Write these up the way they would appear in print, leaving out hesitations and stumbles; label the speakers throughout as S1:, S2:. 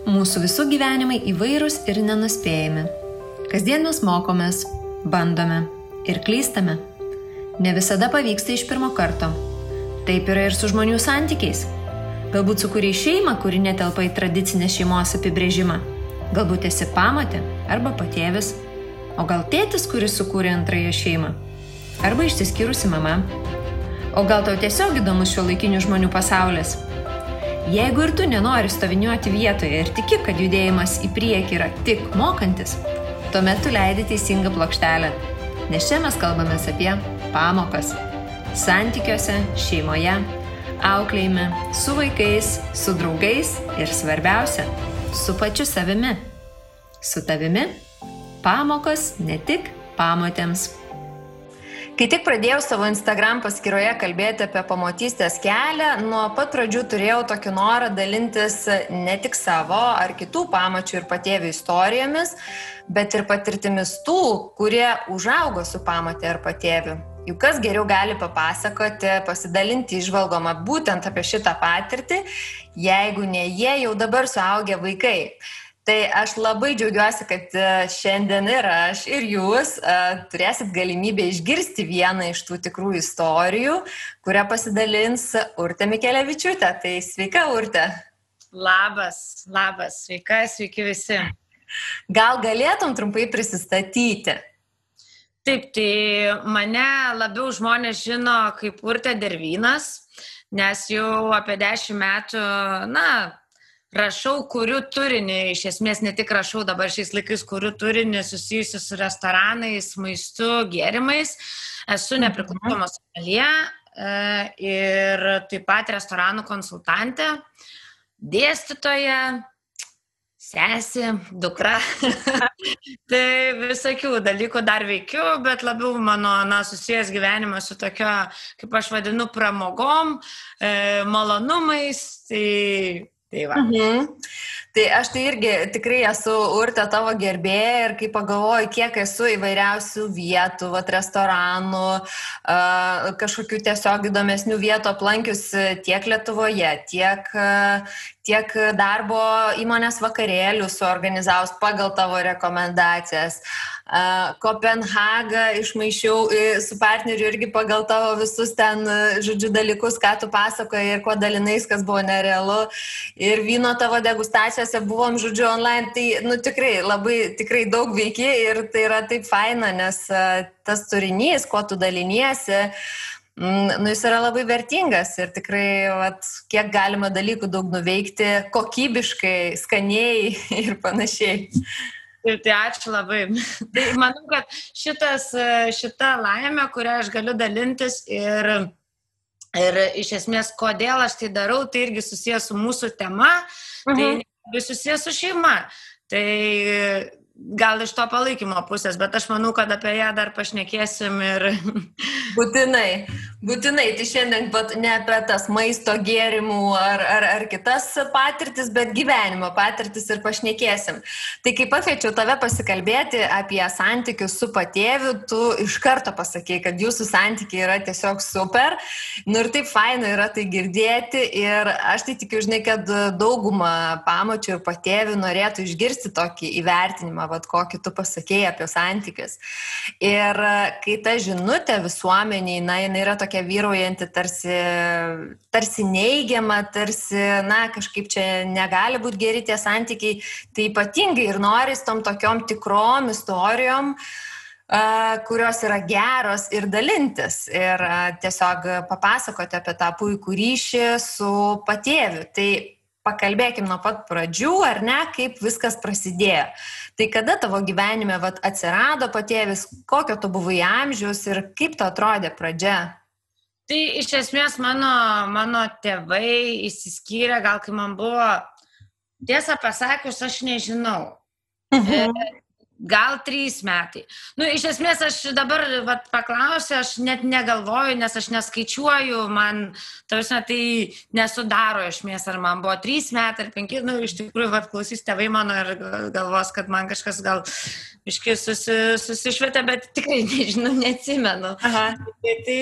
S1: Mūsų visų gyvenimai įvairūs ir nenuspėjami. Kasdien mes mokomės, bandome ir klystame. Ne visada pavyksta iš pirmo karto. Taip yra ir su žmonių santykiais. Galbūt sukūrei šeimą, kuri netelpa į tradicinę šeimos apibrėžimą. Galbūt esi pamotė arba patėvis. O gal tėtis, kuris sukūrė antrąją šeimą. Arba išsiskyrusi mama. O gal tau tiesiog įdomus šiuolaikinių žmonių pasaulis. Jeigu ir tu nenori stoviniuoti vietoje ir tiki, kad judėjimas į priekį yra tik mokantis, tuomet tu leidi teisingą plokštelę. Nes čia mes kalbamės apie pamokas. Santykiuose, šeimoje, auklėjime, su vaikais, su draugais ir svarbiausia, su pačiu savimi. Su tavimi pamokos ne tik pamotėms. Kai tik pradėjau savo Instagram paskyroje kalbėti apie pamotystės kelią, nuo pat pradžių turėjau tokį norą dalintis ne tik savo ar kitų pamočių ir patėvių istorijomis, bet ir patirtimis tų, kurie užaugo su pamotė ar patėviu. Juk kas geriau gali papasakoti, pasidalinti įžvalgomą būtent apie šitą patirtį, jeigu ne jie jau dabar suaugę vaikai. Tai aš labai džiaugiuosi, kad šiandien ir aš, ir jūs turėsit galimybę išgirsti vieną iš tų tikrų istorijų, kurią pasidalins Urtė Mikelevičiūtė. Tai sveika, Urtė.
S2: Labas, sveiki visi.
S1: Gal galėtum trumpai prisistatyti?
S2: Taip, tai mane labiau žmonės žino kaip Urtė Dervynas, nes jau apie 10 metų, rašau, kuriu turinį, iš esmės ne tik rašau dabar šiais laikais, kuriu turinį susijusiu su restoranais, maistu, gėrimais. Esu nepriklausoma someljė ir taip pat restoranų konsultantė, dėstytoja, sesė, dukra. Tai visokių dalykų dar veikiu, bet labiau mano susijęs gyvenimas su tokio, kaip aš vadinu, pramogom, malonumais. Tai va.
S1: Tai aš tai irgi tikrai esu, Urtė, tavo gerbėja ir kai pagalvoju, kiek esu įvairiausių vietų, restoranų, kažkokių tiesiog įdomesnių vietų aplankius tiek Lietuvoje, tiek darbo įmonės vakarėlių suorganizavus pagal tavo rekomendacijas. Kopenhagą išmaišiau su partneriu irgi pagal tavo visus ten, dalykus, ką tu pasakoji ir kuo dalinais, kas buvo nerealu. Ir vyno tavo degustacijose buvom, online. Tai, tikrai daug veiki ir tai yra taip faina, nes tas turinys, kuo tu daliniesi, jis yra labai vertingas ir tikrai, kiek galima dalykų daug nuveikti, kokybiškai, skaniai ir panašiai.
S2: Tai ačiū labai. Tai manau, kad šita laimė, kurią aš galiu dalintis ir iš esmės, kodėl aš tai darau, tai irgi susijęs su mūsų tema, tai susijęs su šeima. Tai gal iš to palaikymo pusės, bet aš manau, kad apie ją dar pašnekėsim ir...
S1: Būtinai. Tai šiandien ne apie tas maisto gėrimų ar kitas patirtis, bet gyvenimo patirtis ir pašnekėsim. Tai kai pakviečiau tave pasikalbėti apie santykius su patėviu, tu iš karto pasakei, kad jūsų santykiai yra tiesiog super. Ir taip faina yra tai girdėti ir aš tai tikiu, kad dauguma pamočių ir patėvių norėtų išgirsti tokį įvertinimą, kokį tu pasakėjai apie santykius. Ir kai ta žinutė visuomeniai, jinai yra tokia vyraujanti, tarsi neigiama, tarsi, kažkaip čia negali būti geri tie santykiai, tai ypatingai ir noris tom tokiom tikrom istorijom, kurios yra geros ir dalintis ir tiesiog papasakoti apie tą puikų ryšį su patėviu. Tai pakalbėkim nuo pat pradžių, ar ne, kaip viskas prasidėjo. Tai kada tavo gyvenime atsirado patėvis, kokio tu buvai amžiaus ir kaip to atrodė pradžia?
S2: Tai iš esmės mano tėvai išsiskyrė, gal kai man buvo, tiesą pasakius, aš nežinau. Gal 3 metai. Iš esmės aš dabar paklausiu, aš net negalvoju, nes aš neskaičiuoju, man, tai nesudaro esmės, ar man buvo 3 metai ar 5, iš tikrųjų, klausys tėvai mano ir galvos, kad man kažkas gal susišvietė, bet tikrai nežinau, neatsimenu. Tai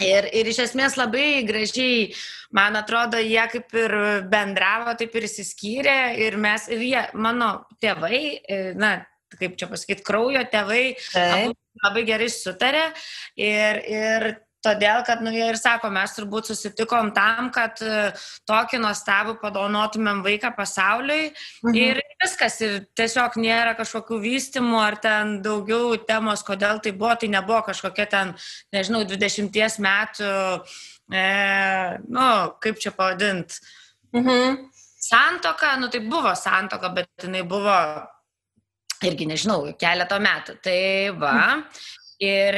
S2: Ir iš esmės labai gražiai, man atrodo, jie kaip ir bendravo, taip ir išsiskyrė ir jie, mano tėvai, na, kaip čia pasakyti, kraujo tėvai, abu labai gerai sutarė ir todėl, kad, jie ir sako, mes turbūt susitikom tam, kad tokį nuostabų padovanotumėm vaiką pasauliui ir viskas, ir tiesiog nėra kažkokių vystymų ar ten daugiau temos, kodėl tai nebuvo kažkokia ten, nežinau, 20 metų, kaip čia pavadint, santuoka, tai buvo santuoka, bet jinai buvo irgi, nežinau, keletą metų, tai va. Ir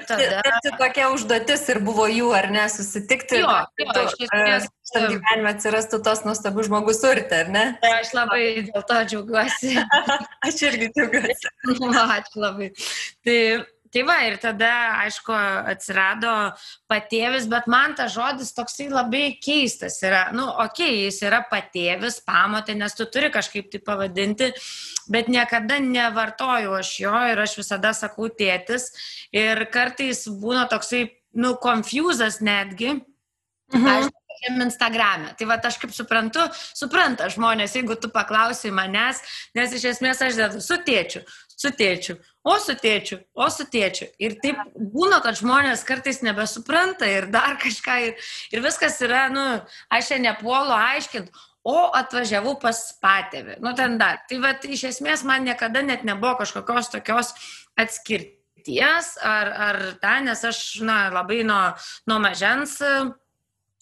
S2: tada...
S1: Tai tokia užduotis ir buvo jų, ar ne, susitikti, šitam gyvenime atsirastų tos nuostabus žmogus urte, ar ne?
S2: Aš labai dėl to džiaugiuosi.
S1: Aš irgi džiaugiuosi.
S2: Ačiū labai. Tai va, ir tada, aišku, atsirado patėvis, bet man tas žodis toksai labai keistas yra. Jis yra patėvis, pamotė, nes tu turi kažkaip tai pavadinti, bet niekada nevartoju aš jo ir aš visada sakau tėtis. Ir kartais būna toksai, confusas netgi. Aš Instagrame. Tai va, aš kaip supranta žmonės, jeigu tu paklausai manęs, nes iš esmės aš dedu su tėčiu, o su tėčiu. Ir taip būna, kad žmonės kartais nebesupranta ir dar kažką. Ir viskas yra, aš čia nepuolu aiškinti, o atvažiavau pas patėvį. Ten dar. Tai va, iš esmės man niekada net nebuvo kažkokios tokios atskirties ar nes aš labai nuo mažens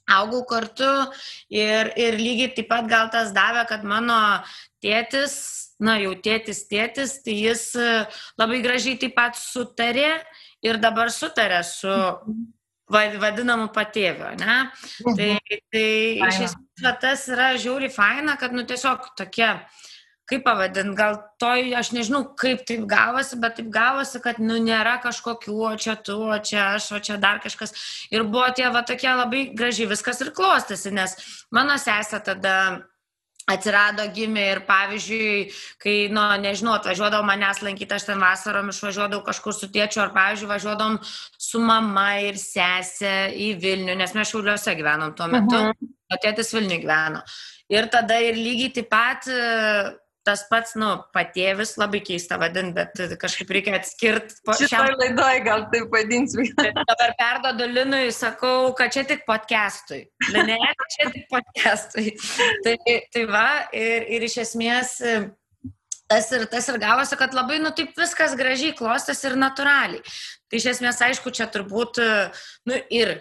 S2: augau kartu ir lygiai taip pat gal tas davė, kad mano tėtis, jau tėtis, tai jis labai gražiai taip pat sutarė ir dabar sutarė su vadinamu patėviu, ne? Tai iš esmės tas yra žiauriai faina, kad tiesiog tokie, kaip pavadint, gal aš nežinau, kaip taip gavosi, bet taip gavosi, kad nėra kažkokių, o čia tu, o čia aš, o čia dar kažkas. Ir buvo tie tokie labai gražiai viskas ir klostėsi, nes mano sesė tada atsirado, gimė ir pavyzdžiui, kai, nežinau, atvažiuodavau manęs lankyti, aš ten vasarom išvažiuodavau kažkur su tėčiu, ar pavyzdžiui, važiuodavom su mama ir sesė į Vilnių, nes mes Šiauliuose gyvenom tuo metu, o tėtis Vilniuje gyveno. Ir tada ir lygiai taip pat tas pats, patėvis, labai keista vadinti, bet kažkaip reikia atskirti.
S1: Šitoj laidoj gal taip vadinsiu.
S2: Dabar perduodu Linui, sakau, kad čia tik podcastui. Ne, čia tik podcastui. Tai va, ir iš esmės tas ir gavosi, kad labai, taip viskas gražiai klostėsi ir natūraliai. Tai iš esmės, aišku, čia turbūt, ir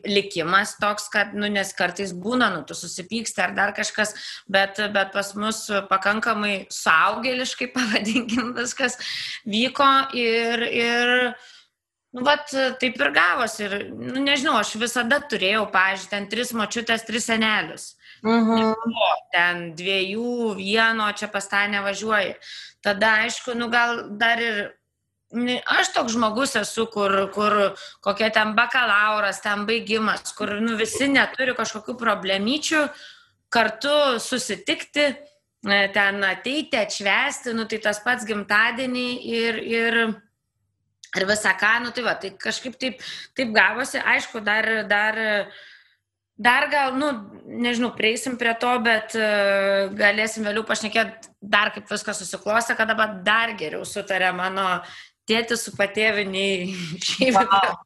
S2: likimas toks, kad, nes kartais būna, tu susipyksti ar dar kažkas, bet pas mus pakankamai suaugėliškai, pavadinkim, viskas vyko ir taip ir gavosi. Ir, nežinau, aš visada turėjau, pavyzdžiui, ten 3 močiutės, 3 senelius. Ten 2, 1, čia pas tą nevažiuoji. Tada, aišku, gal dar ir aš toks žmogus esu, kur kokia ten bakalauras, ten baigimas, kur visi neturi kažkokių problemyčių kartu susitikti, ten ateiti, atšvęsti, tai tas pats gimtadienį ir visą ką, tai va, tai kažkaip taip gavosi, aišku, dar gal, nežinau, prieisim prie to, bet galėsim vėliau pašnekėti dar kaip viskas susiklostė, kad dabar dar geriau sutarė mano tėtis su patėviniai šiaip.
S1: Wow.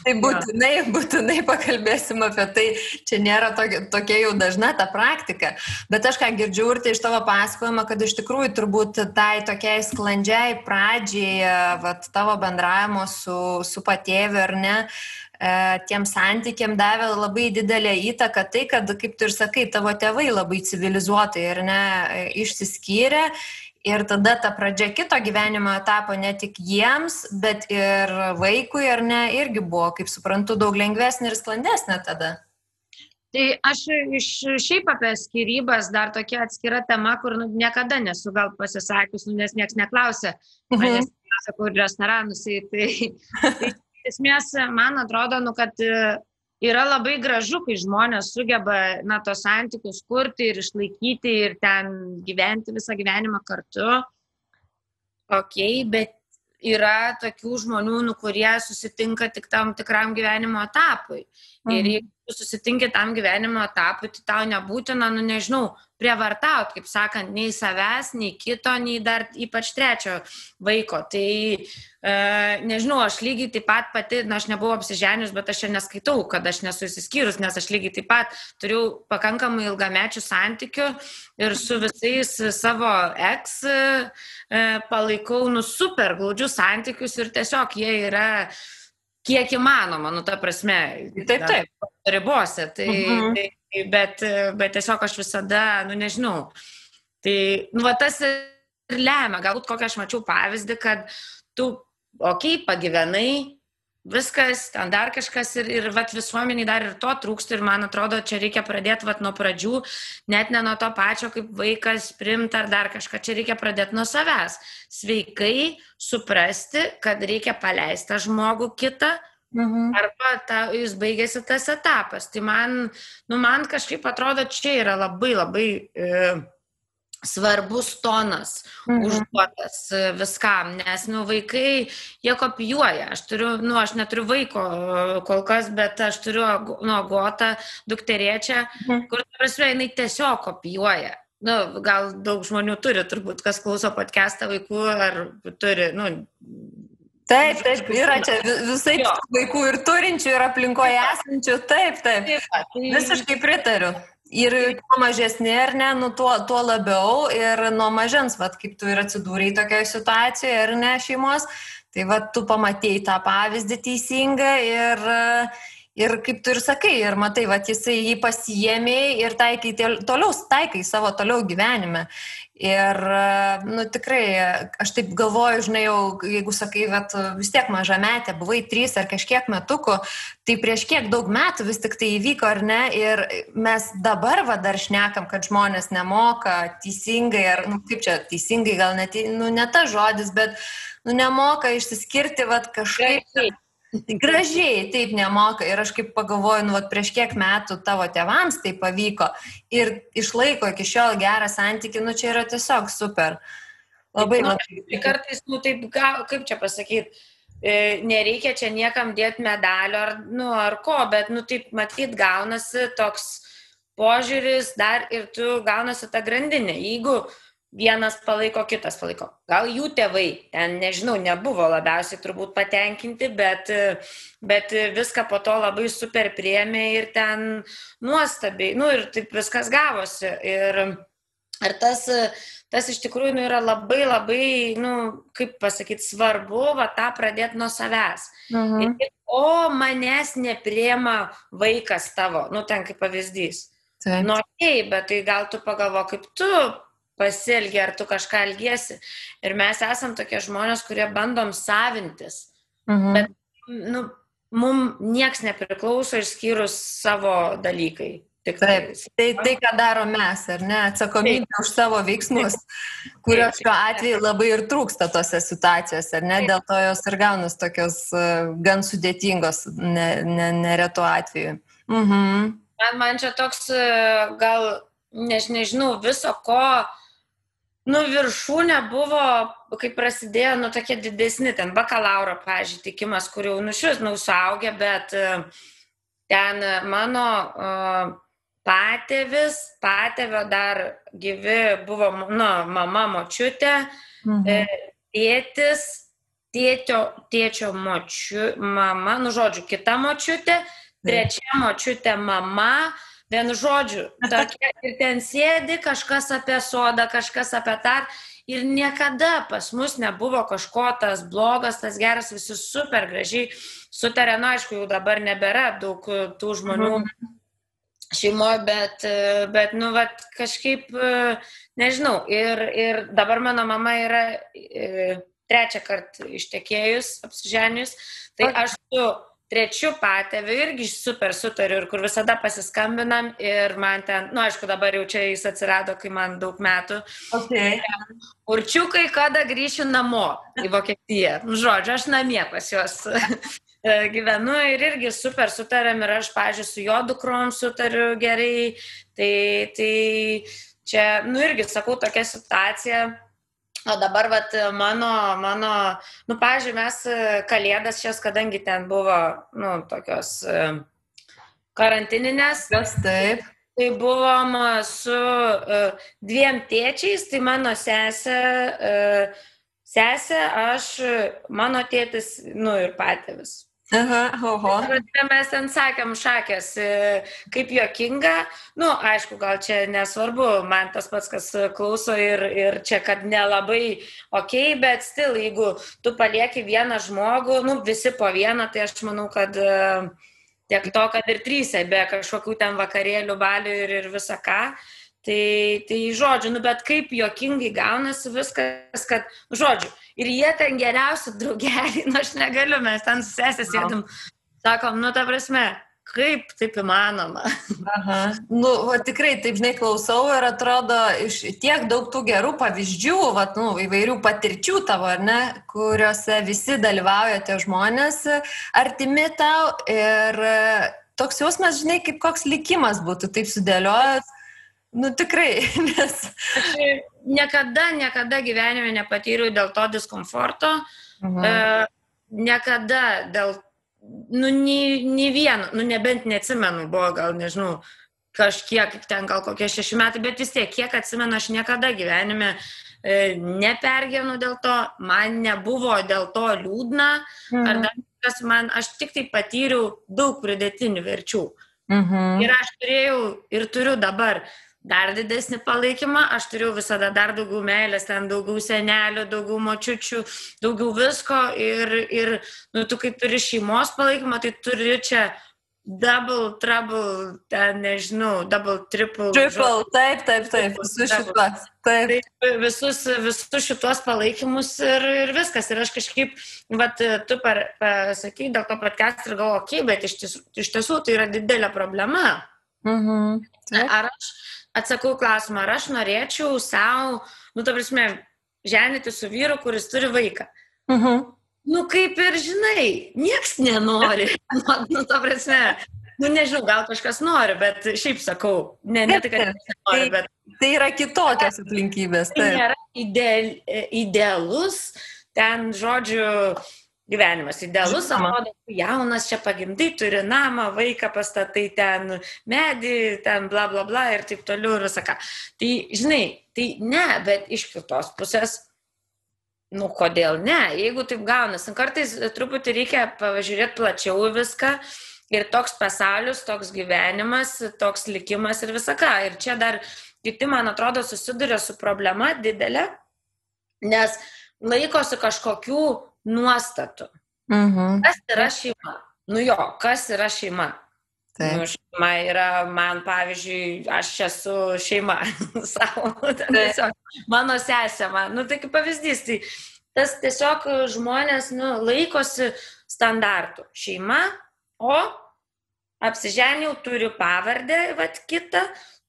S1: Tai būtinai pakalbėsim apie tai, čia nėra tokia jau dažna ta praktika, bet aš ką girdžiu ir tai iš tavo pasakojimo, kad iš tikrųjų turbūt tai tokiai sklandžiai pradžiai tavo bendravimo su patėviu ar ne, tiem santykiam davė labai didelę įtaką tai, kad, kaip tu ir sakai, tavo tėvai labai civilizuotai ar ne išsiskyrė. Ir tada ta pradžia kito gyvenimo etapo ne tik jiems, bet ir vaikui, ar ne, irgi buvo, kaip suprantu, daug lengvesnė ir sklandesnė tada.
S2: Tai aš šiaip apie skyrybas dar tokia atskira tema, kur niekada nesu gal pasisakius, nes nieks neklausė, manęs sakau, ir restoranus. Tai esmės, man atrodo, kad yra labai gražu, kai žmonės sugeba tos santykius kurti ir išlaikyti ir ten gyventi visą gyvenimą kartu. Bet yra tokių žmonių, kurie susitinka tik tam tikram gyvenimo etapui. Ir jeigu tu susitinki tam gyvenimo etapui, tai tau nebūtina, nežinau, prievartauti, kaip sakant, nei savęs, nei kito, nei dar ypač trečio vaiko. Tai, nežinau, aš lygiai taip pat pati, aš nebuvau apsiženius, bet aš čia neskaitau, kad aš nesu išsiskyrus, nes aš lygiai taip pat turiu pakankamai ilgamečių santykių ir su visais savo ex palaikau, super glaudžius santykius ir tiesiog jie yra kiek įmanoma, ta prasme,
S1: taip.
S2: Ribose, bet tiesiog aš visada, nežinau, tai, tas ir lemia, galbūt kokią aš mačiau pavyzdį, kad tu, pagyvenai, viskas, ten dar kažkas ir visuomeniai dar ir to trūksta ir man atrodo, čia reikia pradėti nuo pradžių, net ne nuo to pačio, kaip vaikas primti ar dar kažką, čia reikia pradėti nuo savęs. Sveikai suprasti, kad reikia paleisti tą žmogų kitą, arba jis baigėsi tas etapas. Tai man kažkaip atrodo, čia yra labai labai svarbus tonas užduotas viskam, nes vaikai, jie kopijuoja. Aš neturiu vaiko kol kas, bet aš turiu Agotą, dukterėčią, kur jinai tiesiog kopijuoja. Gal daug žmonių turi, turbūt, kas klauso podcastą vaikų, ar turi,
S1: Taip, yra čia visai vaikų ir turinčių, ir aplinkoje esančių, taip. Visiškai pritariu. Ir kuo mažesnė, ar ne, tuo labiau ir nuo mažens, kaip tu ir atsidūrei tokioje situacijoje, ar ne, šeimos, tai tu pamatėjai tą pavyzdį teisingą ir kaip tu ir sakai, ir matai, jisai jį pasiėmė ir taikai savo toliau gyvenime. Ir, tikrai, aš taip galvoju, žinai, jeigu sakai, vis tiek mažametė, buvai 3 ar kažkiek metukų, tai prieš kiek daug metų vis tik tai įvyko, ar ne, ir mes dabar dar šnekam, kad žmonės nemoka teisingai, ar, kaip čia, teisingai gal net, ne tas žodis, bet, nemoka išsiskirti, kažkaip... Gražiai, taip nemoka. Ir aš kaip pagalvoju, prieš kiek metų tavo tėvams tai pavyko ir išlaiko iki šiol gerą santykį, čia yra tiesiog super. Labai.
S2: Kartais, taip, kaip čia pasakyti, nereikia čia niekam dėti medalio ar ko, bet, taip matyt, gaunasi toks požiūris dar ir tu gaunasi tą grandinę. Jeigu vienas palaiko, kitas palaiko. Gal jų tėvai, ten, nežinau, nebuvo labiausiai turbūt patenkinti, bet viską po to labai super priėmė ir ten nuostabiai, ir taip viskas gavosi. Ir tas iš tikrųjų yra labai labai, kaip pasakyti, svarbu, tą pradėti nuo savęs. Manęs nepriema vaikas tavo, ten kaip pavyzdys. Bet tai gal tu pagalvo, kaip tu pasielgi, ar tu kažką elgiesi. Ir mes esam tokie žmonės, kurie bandom savintis. Bet, mums nieks nepriklauso išskyrus savo dalykai.
S1: Taip, tai ką daro mes, ar ne, atsakomybė už savo veiksmus, kurios šiuo atveju labai ir trūksta tose situacijose, ar ne, dėl to jos ir gaunas tokios gan sudėtingos neretų atveju.
S2: Man čia toks gal, nežinau, viso ko, viršūnė buvo, kai prasidėjo, tokie didesni, ten bakalauro, pavyzdžiui, tikimas, kur jau šis, suaugę, bet ten mano patėvio dar gyvi buvo, mama, močiutė, tėtis, tėčio mama, žodžiu, kita močiutė, trečia močiutė mama, vienu žodžiu, tokia, ir ten sėdi kažkas apie sodą, kažkas apie tą, ir niekada pas mus nebuvo kažko tas blogas, tas geras, visi super gražiai sutarė, aišku, jau dabar nebėra daug tų žmonių šeimoje, bet kažkaip, nežinau, ir dabar mano mama yra 3 kartą ištekėjus, apsiženius, tai aš su 3 patėviu irgi super sutariu ir kur visada pasiskambinam ir man ten, aišku, dabar jau čia jis atsirado, kai man daug metų. Určiukai, kada grįšiu namo į Vokietiją. Žodžiu, aš namie pas juos gyvenu ir irgi super sutariam ir aš, pavyzdžiui, su jo dukrom sutariu gerai. Tai čia, irgi sakau, tokia situacija, O dabar, vat, nu, pavyzdžiui, mes kalėdas šias, kadangi ten buvo, nu, tokios karantininės,
S1: Taip.
S2: tai buvom su dviem tėčiais, tai mano sesė, aš, mano tėtis, nu, ir patėvis.
S1: Oho.
S2: Mes ten sakėm šakės, kaip juokinga, nu, aišku, gal čia nesvarbu, man tas pats, kas klauso ir čia, kad nelabai okei, bet stil, jeigu tu palieki vieną žmogų, nu, visi po vieną, tai aš manau, kad tiek to, kad ir trysia, be kažkokių ten vakarėlių, balių ir visą ką. Tai žodžiu, nu, bet kaip juokingai gaunasi viskas, kad, žodžiu, ir jie ten geriausi draugeliai, nu, aš negaliu, mes ten su sesė sėdim, sakom, nu, ta prasme, kaip taip įmanoma.
S1: Aha. Nu, va, tikrai, taip, žinai, klausau ir atrodo iš tiek daug tų gerų pavyzdžių, va, nu, įvairių patirčių tavo, ar ne, kuriuose visi dalyvauja tie žmonės artimi tau ir toks jausmas, žinai, kaip koks likimas būtų taip sudėliojęs. Nu, tikrai, nes...
S2: Aš niekada gyvenime nepatyriau dėl to diskomforto, niekada dėl, nu, nei vieno, nu, nebent neatsimenu, buvo gal, nežinau, kažkiek, ten gal kokie 6 metai, bet vis tiek, kiek atsimenu, aš niekada gyvenime nepergyvenu dėl to, man nebuvo dėl to liūdna, ar dar kas man, aš tik tai patyriau daug pridėtinių verčių. Ir aš turėjau ir turiu dabar dar didesnį palaikymą, aš turėjau visada dar daugiau meilės, ten daugiau senelių, daugiau močiučių, daugiau visko ir nu, tu kai turi šeimos palaikymą, tai turi čia double, trouble, ten nežinau, double, triple.
S1: Taip, visus šituos. Taip.
S2: Visus šituos palaikymus ir viskas. Ir aš kažkaip, vat, tu pasakai dėl to podcast ir galvoju, okei, bet iš tiesų tai yra didelė problema. Ar aš atsakau klausimą, ar aš norėčiau savo, nu, ta prasme, ženyti su vyru, kuris turi vaiką. Nu, kaip ir žinai, nieks nenori. Nu, ta prasme, nu, nežinau, gal kažkas nori, bet šiaip sakau, ne tai, kad nenori, bet...
S1: Tai yra kitokios aplinkybės.
S2: Tai nėra idealus, ten, žodžiu, gyvenimas idealus, atrodo, jaunas čia pagimdai, turi namą, vaiką pastatai ten, medį, ten bla bla bla ir taip toliau ir visą ką. Tai, žinai, tai ne, bet iš kitos pusės, nu, kodėl ne? Jeigu taip gaunas, kartais truputį reikia pažiūrėti plačiau viską ir toks pasaulis, toks gyvenimas, toks likimas ir visą ką. Ir čia dar kiti, man atrodo, susiduria su problema didelė, nes laikosi kažkokių nuostatų. Kas yra šeima? Nu jo, kas yra šeima? Nu, šeima yra, man, pavyzdžiui, aš esu šeima savo, tiesiog, mano sesė, nu tai kaip pavyzdys, tai tas tiesiog žmonės, nu, laikosi standartų. Šeima, o apsiženiau, turiu pavardę, vat, kitą,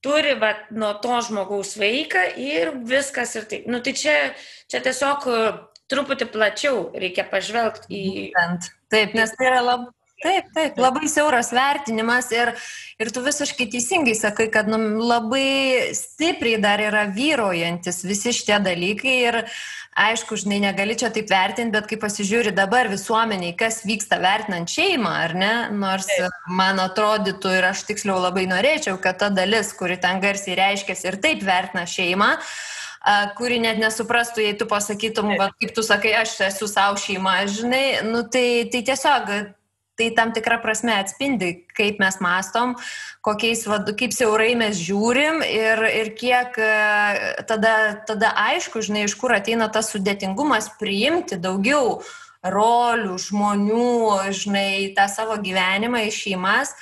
S2: turi, vat, nuo to žmogaus vaiką ir viskas ir taip. Nu tai čia tiesiog truputį plačiau reikia pažvelgti į...
S1: Taip, nes tai yra labai siauras vertinimas ir tu visiškai teisingai sakai, kad labai stipriai dar yra vyraujantis visi šitie dalykai ir aišku, žinai, negali čia taip vertinti, bet kai pasižiūri dabar visuomeniai, kas vyksta vertinant šeimą, ar ne, nors man atrodytų ir aš tiksliau labai norėčiau, kad ta dalis, kuri ten garsiai reiškiasi ir taip vertina šeimą, kuri net nesuprastų, jei tu pasakytum, kaip tu sakai, aš esu savo šeima, žinai, nu tai tiesiog, tai tam tikrą prasme atspindi, kaip mes mastom, kaip siaurai mes žiūrim ir kiek tada aišku, žinai, iš kur ateina tas sudėtingumas priimti daugiau rolių, žmonių, žinai, tą savo gyvenimą į šeimas.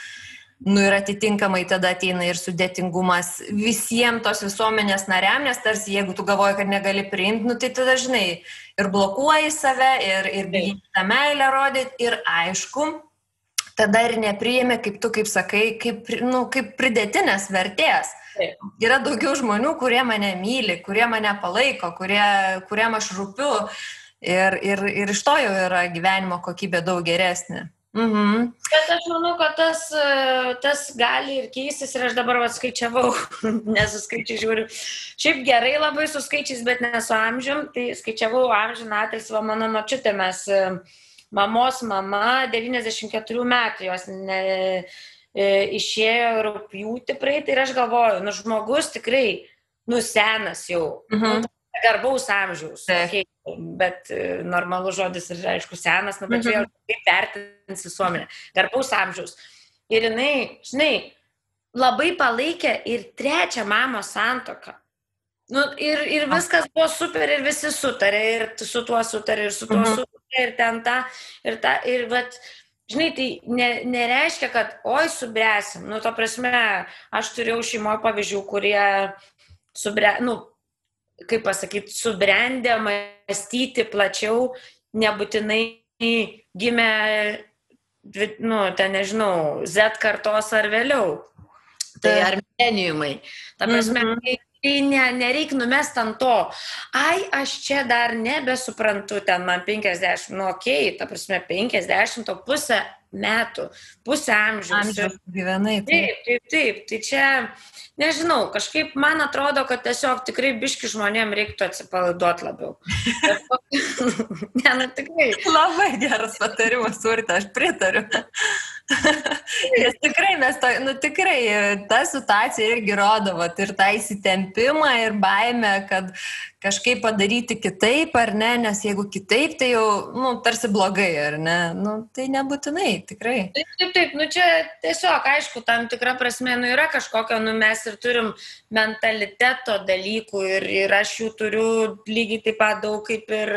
S1: Nu ir atitinkamai tada ateina ir sudėtingumas visiems tos visuomenės nariam, nes tarsi jeigu tu galvoji, kad negali priimti, nu tai tada, žinai, ir blokuoji save, ir bijai tą meilę rodyti, ir aišku, tada ir nepriimi, kaip tu, kaip sakai, kaip pridėtinės vertės. Yra daugiau žmonių, kurie mane myli, kurie mane palaiko, kuriem aš rūpiu, ir iš to jau yra gyvenimo kokybė daug geresnė.
S2: Bet aš manau, kad tas gali ir keistis ir aš dabar skaičiavau, nesuskaičiai žiūriu. Šiaip gerai labai su skaičiais, bet ne su amžium, tai skaičiavau amžiną atilsį, mano močiutė, mes mamos mama 94 metų, jos išėjo rugpjūtį praeitį ir aš galvoju, žmogus tikrai, senas jau, garbaus amžiaus, bet normalus žodis ir aišku senas, bet čia jau kaip vertins visuomenė, garbaus amžiaus. Ir jinai, žinai, labai palaikė ir trečią mamos santuoką. Ir viskas buvo super ir visi sutarė, ir su tuo sutarė, ir su tuo sutarė, ir ten ta, ir vat, žinai, tai nereiškia, kad oi subręsim. Ta prasme, aš turėjau šeimoje pavyzdžių, kurie kaip pasakyti, subrendę mąstyti plačiau, nebūtinai gimė, ten nežinau, Z kartos ar vėliau. Tai ar mileniumai. Ta prasme, tai nereik numest ant to. Ai, aš čia dar nebesuprantu, ten man 50, okei, ta prasme, 50, o pusę metų, pusę amžiaus
S1: gyvenai.
S2: Taip, tai čia, nežinau, kažkaip man atrodo, kad tiesiog tikrai biški žmonėm reiktų atsipalaiduoti labiau. Tikrai.
S1: Labai geras patarimas, Urte, aš pritariu. Nes tikrai, ta situacija irgi rodo, ir tą įsitempimą ir baimę, kad kažkaip padaryti kitaip, ar ne, nes jeigu kitaip, tai jau, tarsi blogai, ar ne, tai nebūtinai, tikrai.
S2: Taip, čia tiesiog, aišku, tam tikra prasme, yra kažkokio, mes ir turim mentaliteto dalykų ir aš jų turiu lygiai taip pat daug kaip ir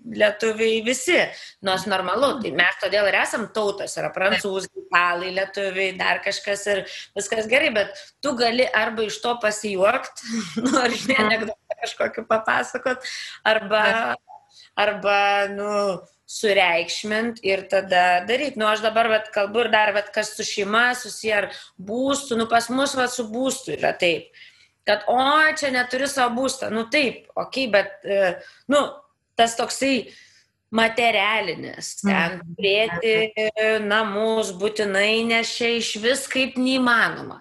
S2: lietuviai visi, nors normalu, tai mes todėl ir esam tautos, yra prancūzai, italai, lietuviai, dar kažkas ir viskas gerai, bet tu gali arba iš to pasijuokti, ar anekdotą kažkokį papasakot, arba sureikšmint ir tada daryti. Aš dabar kalbu ir dar, kas su šeima susiję ar būstų, pas mus su būstų yra taip, kad čia neturi savo būstą, taip, okei, bet tas toksai materialinis, ten turėti namus būtinai, nes čia iš vis kaip neįmanoma.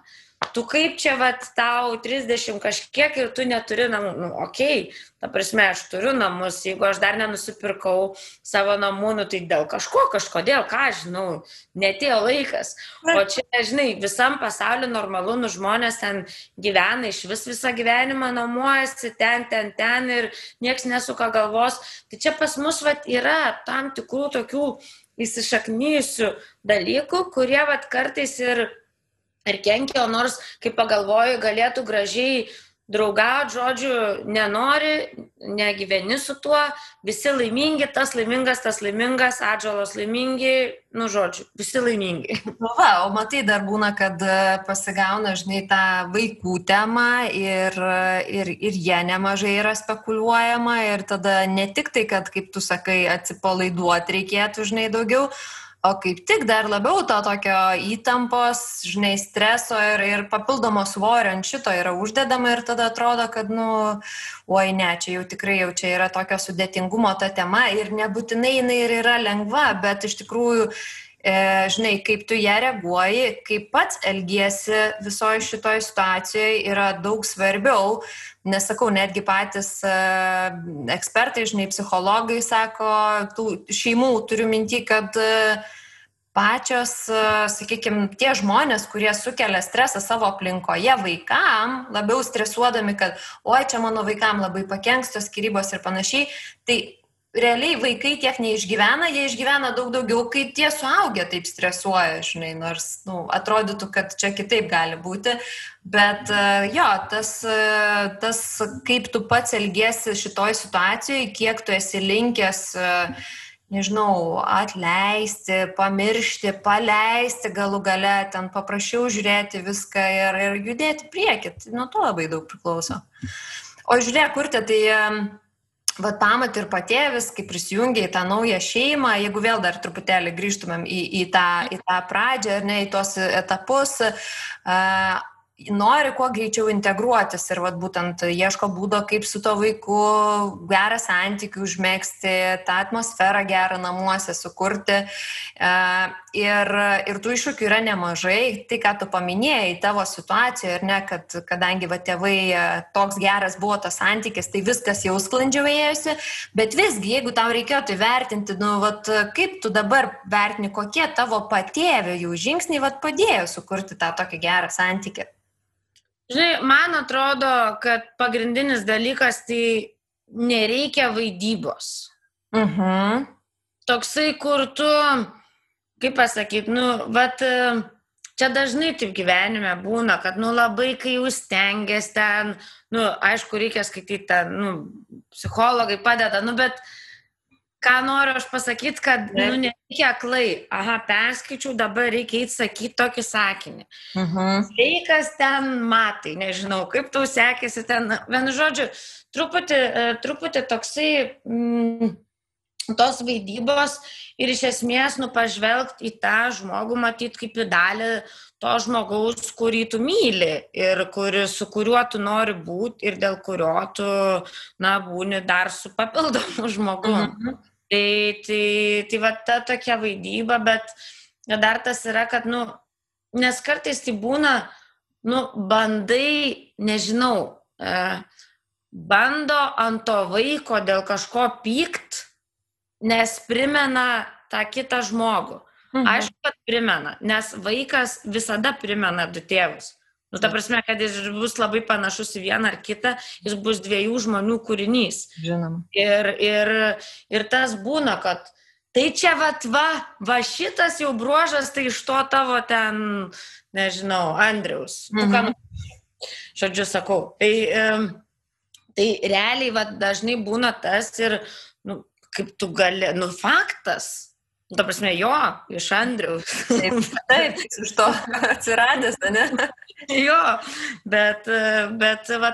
S2: Tu kaip čia tau 30 kažkiek ir tu neturi namų, okei, ta prasme, aš turiu namus, jeigu aš dar nenusipirkau savo namų, tai dėl kažkodėl, ką žinau, netėjo laikas. O čia, žinai, visam pasauliu normalu, žmonės ten gyvena, iš visą gyvenimą namuojasi, ten ir nieks nesuka galvos. Tai čia pas mus yra tam tikrų tokių įsišaknyjusių dalykų, kurie kartais ir kenkia, nors, kaip pagalvoju, galėtų gražiai draugauti, žodžiu, nenori, negyveni su tuo, visi laimingi, tas laimingas, atžalos laimingi, žodžiu, visi laimingi.
S1: O matai, dar būna, kad pasigauna, žinai, tą vaikų temą ir jie nemažai yra spekuliuojama ir tada ne tik tai, kad, kaip tu sakai, atsipalaiduoti reikėtų, žinai, daugiau, o kaip tik dar labiau to tokio įtampos, žinai, streso ir papildomo svorio ant šito yra uždedama ir tada atrodo, kad, oi ne, čia jau tikrai jau čia yra tokio sudėtingumo ta tema ir nebūtinai jinai ir yra lengva, bet iš tikrųjų, žinai, kaip tu ją reaguoji, kaip pats elgiesi visoje šitoje situacijoje yra daug svarbiau. Nesakau, netgi patys ekspertai, žinai, psichologai sako, tų šeimų turiu minty, kad pačios, sakykime, tie žmonės, kurie sukelia stresą savo aplinkoje vaikam, labiau stresuodami, kad oi, čia mano vaikam labai pakenks tos skyrybos ir panašiai, tai realiai vaikai tiek neišgyvena, jie išgyvena daug daugiau, kai tie suaugę taip stresuoja, žinai, nors atrodytų, kad čia kitaip gali būti, bet jo, tas kaip tu pats elgiesi šitoj situacijoje, kiek tu esi linkęs, nežinau, atleisti, pamiršti, paleisti galų gale, ten paprašiau žiūrėti viską ir judėti priekį, nuo to labai daug priklauso. O žiūrėk, Urte, tai pamat ir patėvis, kai prisijungia į tą naują šeimą, jeigu vėl dar truputėlį grįžtumėm į tą pradžią, ar ne, į tos etapus, nori kuo greičiau integruotis ir vat, būtent ieško būdo, kaip su to vaiku gerą santykių užmėgsti, tą atmosferą gerą namuose sukurti. Ir tų iššūkių yra nemažai. Tai, ką tu paminėjai tavo situacijoje, ir ne, kad kadangi tėvai toks geras buvo tas santykis, tai viskas jau sklandžiau ėjosi, bet visgi, jeigu tau reikėtų įvertinti, kaip tu dabar vertini, kokie tavo patėvio jų žingsniai padėjo sukurti tą tokį gerą santykį.
S2: Žinai, man atrodo, kad pagrindinis dalykas tai nereikia vaidybos. Toksai, kur tu, kaip pasakyti, čia dažnai taip gyvenime būna, kad labai kai jūs stengiasi ten, aišku, reikia skaityti ten, psichologai padeda, bet ką noriu aš pasakyti, kad nereikia aklai. Perskaičiau, dabar reikia įsakyti tokį sakinį. Sveikas ten matai, nežinau, kaip tau sekėsi ten. Vienu žodžiu, truputį toksai tos vaidybos ir iš esmės pažvelgti į tą žmogų, matyti kaip į dalį to žmogaus, kurį tu myli ir su kuriuo tu nori būti ir dėl kurio tu, būni dar su papildomu žmogum. Tai va ta tokia vaidyba, bet dar tas yra, kad, nes kartais tai būna, bandai, nežinau, bando ant to vaiko dėl kažko pykt, nes primena tą kitą žmogų. Aišku, kad primena, nes vaikas visada primena du tėvus. Ta prasme, kad jis bus labai panašus į vieną ar kitą, jis bus dviejų žmonių kūrinys.
S1: Žinoma.
S2: Ir tas būna, kad tai čia va šitas jau bruožas, tai iš to tavo ten, nežinau, Andriaus. Žodžiu, sakau. Tai realiai dažnai būna tas ir, kaip tu gali, faktas. Ta prasme, jo, iš Andriaus.
S1: Taip, iš to atsiradęs, ne?
S2: Jo, bet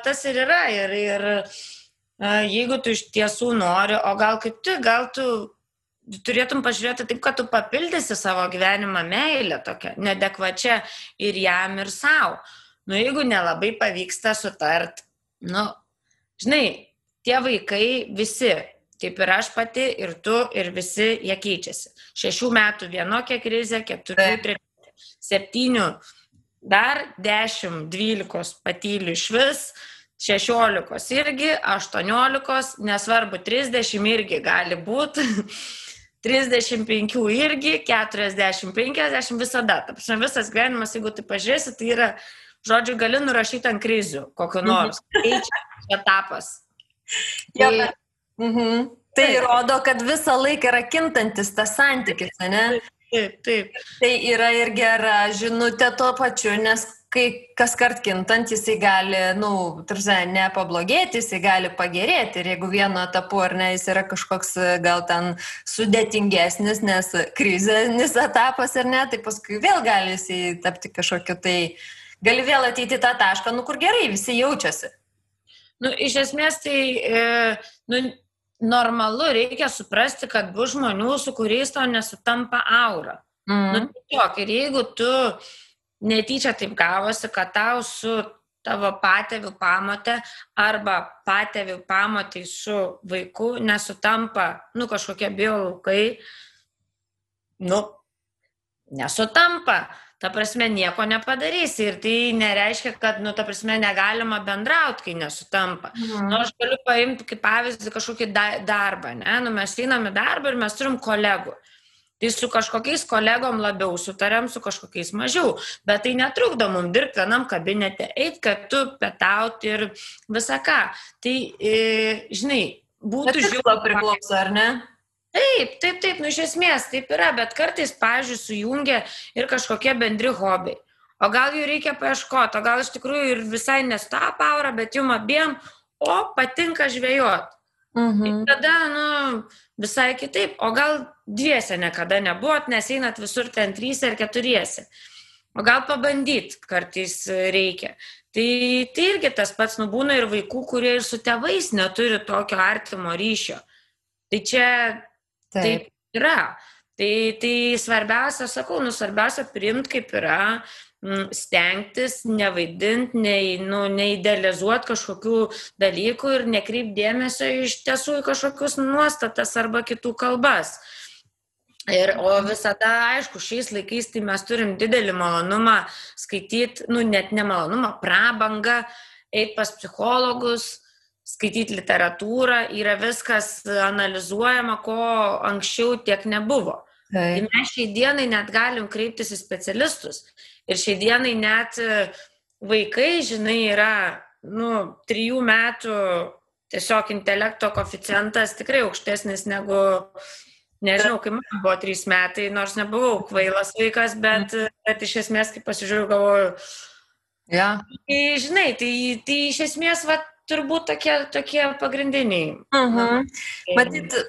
S2: tas ir yra. Ir jeigu tu iš tiesų nori, o gal tu turėtum pažiūrėti taip, kad tu papildysi savo gyvenimą meilę tokią, neadekvačią ir jam, ir savo. Jeigu nelabai pavyksta sutart, žinai, tie vaikai visi, taip ir aš pati, ir tu, ir visi, jie keičiasi. 6 metų vienokia krizė, 4, 7, dar 10, 12 patylių iš vis, 16 irgi, 18, nesvarbu, 30 irgi gali būti, 35 irgi, 40, 50 visada. Visas gyvenimas, jeigu tai pažiūrėsi, tai yra, žodžiu, gali nurašyti ant krizių, kokio nors. Keičia etapas.
S1: Tai rodo, kad visą laiką yra kintantis tas santykis, ne?
S2: Taip.
S1: Tai yra ir gera žinutė tuo pačiu, nes kai kas kart kintant, jisai gali, ne pablogėti, jisai gali pagerėti. Ir jeigu vieno etapu, ar ne, jis yra kažkoks gal ten sudėtingesnis, nes krizinis etapas, ar ne, tai paskui vėl gali jisai tapti kažkokiu, tai gali vėl ateiti tą tašką, kur gerai, visi jaučiasi.
S2: Iš esmės tai, normalu, reikia suprasti, kad bus žmonių, su kuriais tau nesutampa aura. Ir jeigu tu netyčia taip gavosi, kad tau su tavo patėvių pamotė arba patėvių pamotai su vaiku nesutampa, kažkokie biolaukai, nesutampa. Ta prasme, nieko nepadarysi ir tai nereiškia, kad, ta prasme, negalima bendrauti, kai nesutampa. Aš galiu paimti kaip pavyzdį kažkokį darbą, ne? Mes einam į darbą ir mes turim kolegų. Tai su kažkokiais kolegom labiau sutariam, su kažkokiais mažiau, bet tai netrukdo mums dirbti vienam kabinete, eit kartu, pietauti ir visą ką. Tai, žinai, būtų
S1: žiūrėti priklauso, ar ne?
S2: Taip, iš esmės taip yra, bet kartais, pavyzdžiui, sujungia ir kažkokie bendri hobiai. O gal jų reikia paieškoti, o gal iš tikrųjų ir visai nesutapa aura, bet jum abiem, patinka žvejoti. Ir tada, visai kitaip, o gal dviese niekada nebuvot, nes einat visur ten 3 ar 4. O gal pabandyti kartais reikia. Tai irgi tas pats būna ir vaikų, kurie ir su tėvais neturi tokio artimo ryšio. Tai čia taip yra. Tai svarbiausia, sakau, svarbiausia priimti kaip yra, stengtis, nevaidinti, neidealizuoti kažkokių dalykų ir nekreipti dėmesio iš tiesų į kažkokius nuostatas arba kitų kalbas. O visada, aišku, šiais laikais tai mes turim didelį malonumą skaityti, net nemalonumą, prabangą, eiti pas psichologus, skaityti literatūrą, yra viskas analizuojama, ko anksčiau tiek nebuvo. Tai mes šiai dienai net galim kreiptis į specialistus. Ir šiai dienai net vaikai, žinai, yra 3 metų tiesiog intelekto koeficientas tikrai aukštesnis negu, nežinau, kai man buvo 3 metai, nors nebuvau kvailas vaikas, bet iš esmės, kai pasižiūriu, galvoju, tai, žinai, tai iš esmės, turbūt tokie pagrindiniai.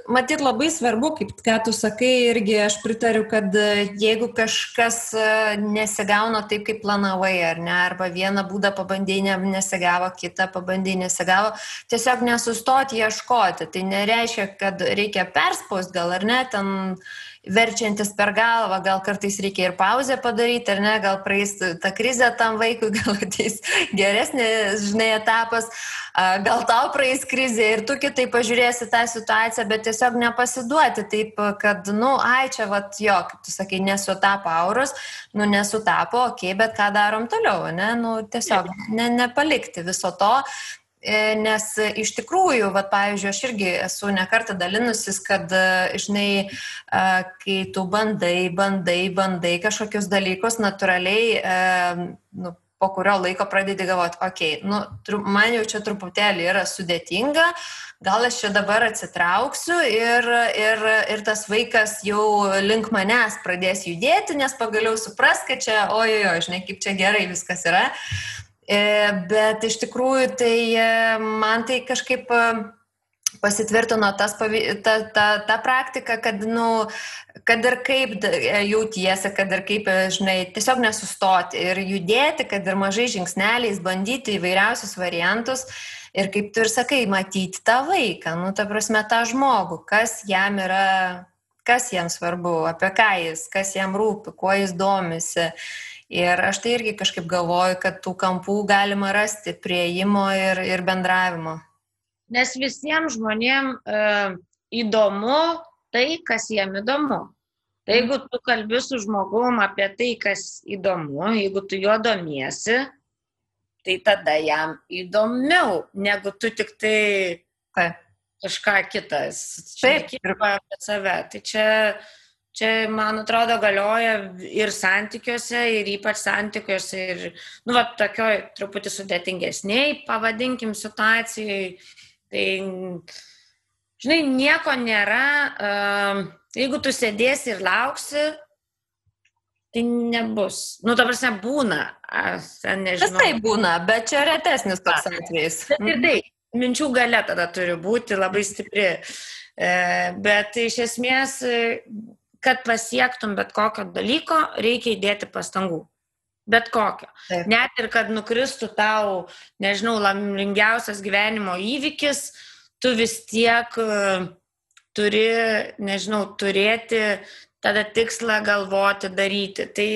S1: Matyt, labai svarbu, kaip ką tu sakai, irgi aš pritariu, kad jeigu kažkas nesigauna taip, kaip planavai, ar ne, arba vieną būdą pabandėjai, nesigavo, kitą pabandėjai, nesigavo, tiesiog nesustoti ieškoti. Tai nereiškia, kad reikia perspausti gal, ar ne, ten verčiantis per galvą, gal kartais reikia ir pauzę padaryti, ar ne, gal praeis ta krizė tam vaikui, gal ateis geresnis, žinai, etapas, gal tau praeis krizė ir tu kitai pažiūrėsi tą situaciją, bet tiesiog nepasiduoti taip, kad, čia, kaip tu sakai, nesutapo auros, nesutapo, okei, bet ką darom toliau, ne, tiesiog nepalikti viso to. Nes iš tikrųjų, pavyzdžiui, aš irgi esu ne kartą dalinusis, kad, žinai, kai tu bandai kažkokius dalykus, natūraliai, po kurio laiko pradedi galvoti, okei, man jau čia truputėlį yra sudėtinga, gal aš čia dabar atsitrauksiu ir tas vaikas jau link manęs pradės judėti, nes pagaliau supras, kad čia, žinai, kaip čia gerai viskas yra. Bet iš tikrųjų tai man tai kažkaip pasitvirtino ta praktika, kad, kad ir kaip jautiesi, kad ir kaip, žinai, tiesiog nesustoti ir judėti, kad ir mažai žingsneliais bandyti įvairiausius variantus ir kaip tu ir sakai, matyti tą vaiką, ta prasme tą žmogų, kas jam yra, kas jam svarbu, apie ką jis, kas jam rūpi, kuo jis domisi. Ir aš tai irgi kažkaip galvoju, kad tų kampų galima rasti prieimo ir bendravimo.
S2: Nes visiems žmonėms įdomu tai, kas jiem įdomu. Tai jeigu tu kalbi su žmogum apie tai, kas įdomu, jeigu tu juo domiesi, tai tada jam įdomiau, negu tu tik tai kažką kitas.
S1: Taip,
S2: ir apie save. Tai čia, man atrodo, galioja ir santykiuose, ir ypač santykiuose, ir, tokioj truputį sudėtingesniai, pavadinkim, situacijai. Tai, žinai, nieko nėra, jeigu tu sėdėsi ir lauksi, tai nebus. Ta prasme, būna, nežinau.
S1: Tai būna, bet čia retesnis toks atvejis.
S2: Ir tai, minčių galia tada turi būti labai stipri. Bet iš esmės, kad pasiektum bet kokio dalyko, reikia įdėti pastangų. Bet kokio.
S1: Taip.
S2: Net ir kad nukristų tau, nežinau, laimingiausias gyvenimo įvykis, tu vis tiek turi, nežinau, turėti tada tikslą galvoti, daryti. Tai,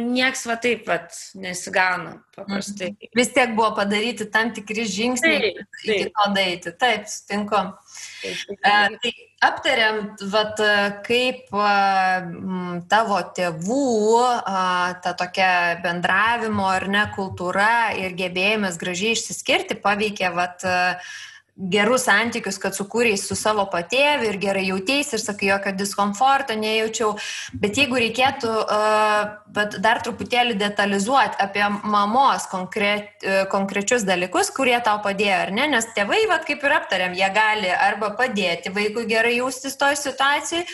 S2: nieks taip nesigauna paprastai.
S1: Vis tiek buvo padaryti tam tikri žingsniai iki to daryti. Taip, sutinku. Tai aptariam, kaip tavo tėvų ta tokia bendravimo ar ne kultūra ir gebėjimas gražiai išsiskirti paveikė gerus santykius, kad sukūrei su savo patėviu ir gerai jauteisi ir sakai, jokio diskomforto nejaučiau. Bet jeigu reikėtų dar truputėlį detalizuoti apie mamos konkrečius dalykus, kurie tau padėjo, ar ne? Nes tėvai, kaip ir aptariam, jie gali arba padėti vaikui gerai jaustis toj situacijai,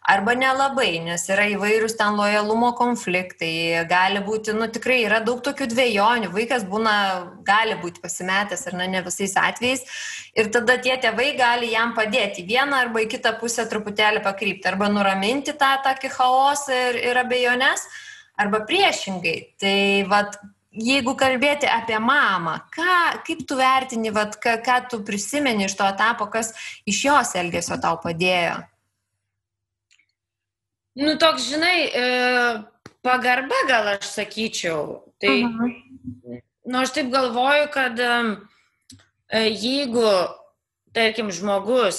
S1: arba nelabai, nes yra įvairūs ten lojalumo konfliktai, gali būti, tikrai yra daug tokių dvejonių, vaikas gali būti pasimetęs ar ne visais atvejais ir tada tie tėvai gali jam padėti vieną arba į kitą pusę truputėlį pakrypti, arba nuraminti tą tokį chaosą ir abejonės, arba priešingai. Tai jeigu kalbėti apie mamą, kaip tu vertini, ką tu prisimeni iš to etapo, kas iš jos elgesio tau padėjo?
S2: Toks, žinai, pagarba gal aš sakyčiau. Tai, aš taip galvoju, kad jeigu, tarkim, žmogus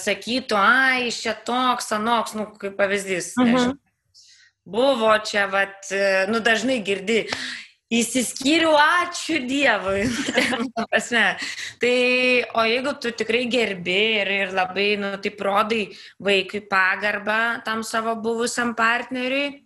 S2: sakytų, iš čia toks, anoks, kaip pavyzdys, nežinau, buvo čia, dažnai girdi, įsiskyriau, ačiū Dievui. Tai, o jeigu tu tikrai gerbi ir labai, taip rodai vaikui pagarbą tam savo buvusiam partneriui,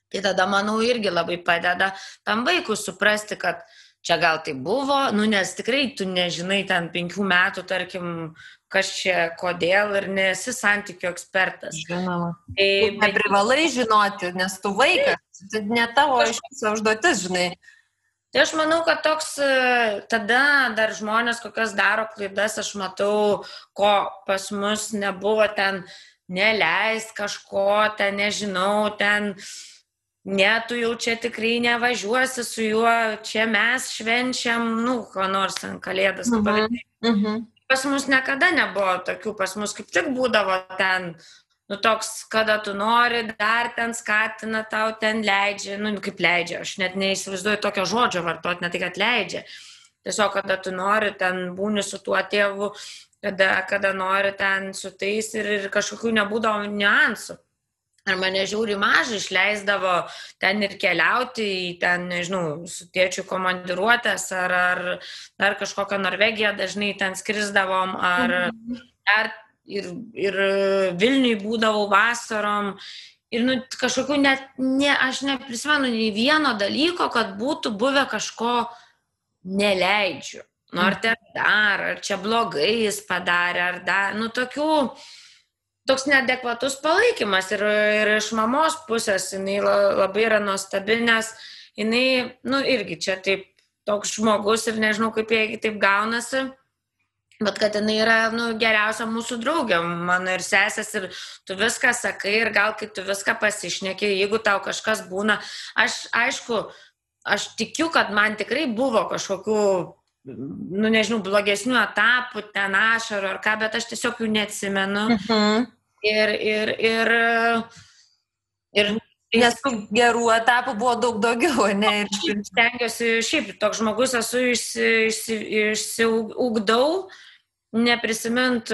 S2: tai tada, manau, irgi labai padeda tam vaikui suprasti, kad čia gal tai buvo, nes tikrai tu nežinai ten 5 metų, tarkim, kas čia, kodėl ir nesi santykių ekspertas.
S1: Žinoma. Neprivalai žinoti, nes tu vaikas, tai ne tavo užduotis, žinai.
S2: Tai aš manau, kad toks, tada dar žmonės kokias daro klaidas, aš matau, ko pas mus nebuvo ten, neleist kažko, ten nežinau, ten... Ne, tu jau čia tikrai nevažiuosi su juo, čia mes švenčiam, ko nors ten kalėdas. Pas mus niekada nebuvo tokių, pas mus kaip tik būdavo ten, toks, kada tu nori, dar ten skatina, tau ten leidžia, kaip leidžia, aš net neįsivaizduoju tokio žodžio vartoti, ne tai, kad leidžia. Tiesiog, kada tu nori, ten būni su tuo tėvu, kada nori ten su tais ir kažkokių nebūdavo niuansų. Ar mane žiauri mažai išleisdavo ten ir keliauti į ten, nežinau, su tėčiu komandiruotės, ar kažkokią Norvegiją dažnai ten skrisdavom, ar ir Vilniui būdavau vasarom. Ir kažkokių aš neprisimenu nei vieno dalyko, kad būtų buvę kažko neleidžiu. Ar ten dar, ar čia blogai jis padarė, ar dar, toks neadekvatus palaikymas ir iš mamos pusės jinai labai yra nuostabi, nes jinai, irgi čia taip toks žmogus ir nežinau, kaip jie taip gaunasi, bet kad jinai yra, geriausia mūsų draugė, mano ir sesės, ir tu viską sakai ir gal kai tu viską pasišneki, jeigu tau kažkas būna, aš tikiu, kad man tikrai buvo kažkokių, nežinau, blogesnių etapų, ten ašarų ar ką, bet aš tiesiog jų neatsimenu.
S1: Nes tų gerų etapų buvo daug daugiau, ne?
S2: Ir stengiuosi, šiaip toks žmogus esu, išsiugdau, neprisimint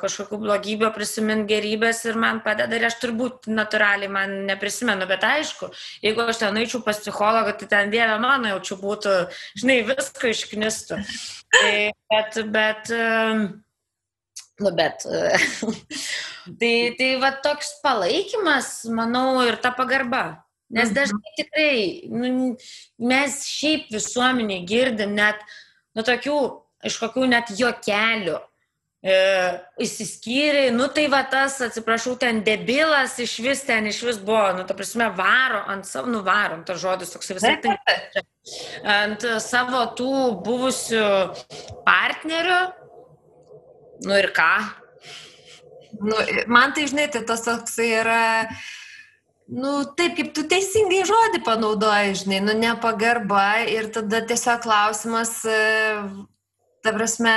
S2: kažkokių blogybių, prisimint gerybės ir man padeda ir aš turbūt natūraliai man neprisimenu, bet aišku, jeigu aš ten eičiau pas psichologą, tai ten Dieve mano jaučiu būtų, žinai, visko išknistų. Tai va toks palaikymas, manau, ir ta pagarba. Nes dažnai tikrai, mes šiaip visuomenė girdim net, tokių, iš kokių net juokelių įsiskyrė, tai va tas, atsiprašau, ten debilas iš vis buvo, ta prasme, varo ant savo, varom, tas žodis toks visai tai, ant savo tų buvusių partnerių. Ir ką?
S1: Man tai, žinai, tai tas toksai yra, taip, kaip tu teisingai žodį panaudoji, žinai, nepagarba ir tada tiesiog klausimas, ta prasme,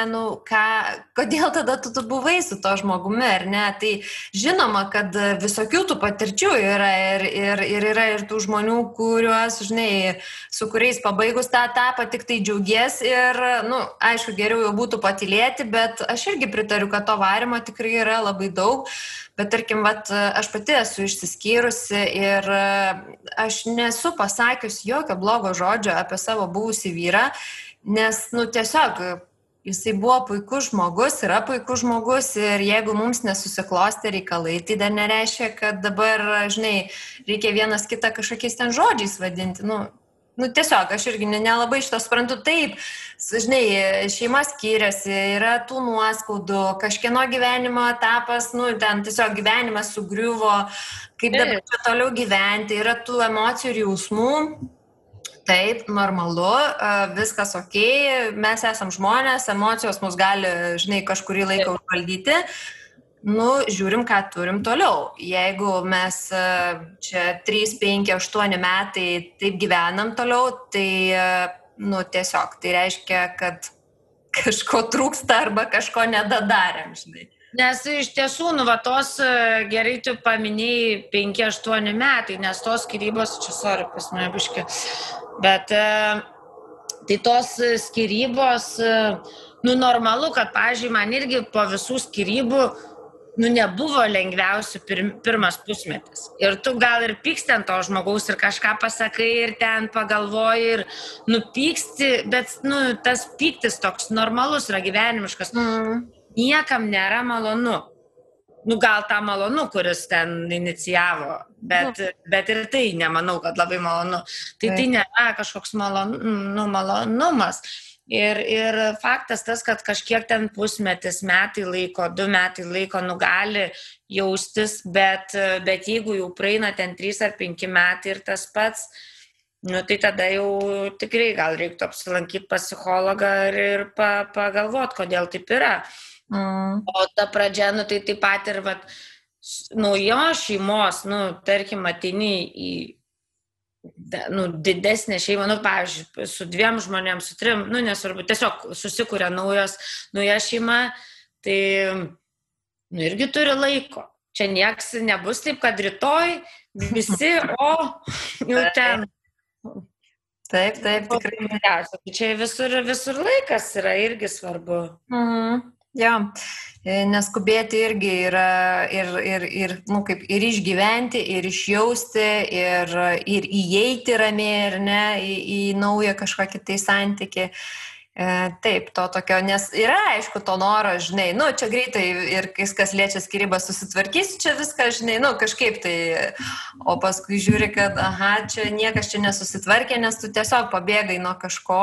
S1: kodėl tada tu buvai su to žmogumi, ar ne? Tai žinoma, kad visokių tų patirčių yra ir yra ir tų žmonių, kuriuos, žinai, su kuriais pabaigus tą etapą tik tai džiaugies ir, aišku, geriau jau būtų patylėti, bet aš irgi pritariu, kad to varimo tikrai yra labai daug, bet tarkim, aš pati esu išsiskyrusi ir aš nesu pasakius jokio blogo žodžio apie savo buvusį vyrą, nes, tiesiog jisai buvo puikus žmogus, yra puikus žmogus ir jeigu mums nesusiklostė reikalai, tai dar nereiškia, kad dabar, žinai, reikia vienas kitą kažkokiais ten žodžiais vadinti. Tiesiog, aš irgi nelabai šito suprantu. Taip, žinai, šeima skiriasi, yra tų nuoskaudų, kažkieno gyvenimo etapas, ten tiesiog gyvenimas sugriuvo, kaip dabar čia toliau gyventi, yra tų emocijų ir jausmų. Taip, normalu, viskas okei, mes esam žmonės, emocijos mus gali, žinai, kažkurį laiką užvaldyti. Žiūrim, ką turim toliau. Jeigu mes čia 3, 5, 8 metai taip gyvenam toliau, tai, tiesiog, tai reiškia, kad kažko trūksta arba kažko nedadarėm, žinai.
S2: Nes iš tiesų, tos gerai tu paminėjai 5-8 metai, nes tos skyrybos, čia sorry, pas mane biški, bet tai tos skyrybos, normalu, kad, pavyzdžiui, man irgi po visų skyrybų, nebuvo lengviausių pirmas pusmetis. Ir tu gal ir pyksti ant to žmogaus ir kažką pasakai ir ten pagalvoji ir nupyksti, bet, tas pyktis toks normalus yra gyvenimiškas. Niekam nėra malonu. Gal tą malonu, kuris ten inicijavo, bet ir tai nemanau, kad labai malonu. Tai nėra kažkoks malonumas. Ir faktas tas, kad kažkiek ten pusmetis, metai laiko, 2 metai laiko gali jaustis, bet jeigu jau praeina ten 3 ar 5 metai ir tas pats, tai tada jau tikrai gal reiktų apsilankyti pas psichologą ir pagalvoti, kodėl taip yra. O ta pradžia, tai taip pat ir naujos šeimos, tarkim, ateini į didesnę šeimą, pavyzdžiui, su 2 žmonėms, su 3, nesvarbu, tiesiog susikuria nauja šeima, tai irgi turi laiko. Čia nieks nebus taip, kad rytoj visi, jau ten.
S1: Taip, tikrai.
S2: Čia visur laikas yra irgi svarbu.
S1: Jo, neskubėti irgi yra ir išgyventi, ir išjausti, ir įeiti ramiai, ar ne, į naują kažkokį tai santykį. Taip, to tokio, nes yra, aišku, to noro, žinai, čia greitai ir kas liečia skyrybas susitvarkysi, čia viską, žinai, kažkaip tai, o paskui žiūri, kad, čia niekas čia nesusitvarkė, nes tu tiesiog pabėgai nuo kažko,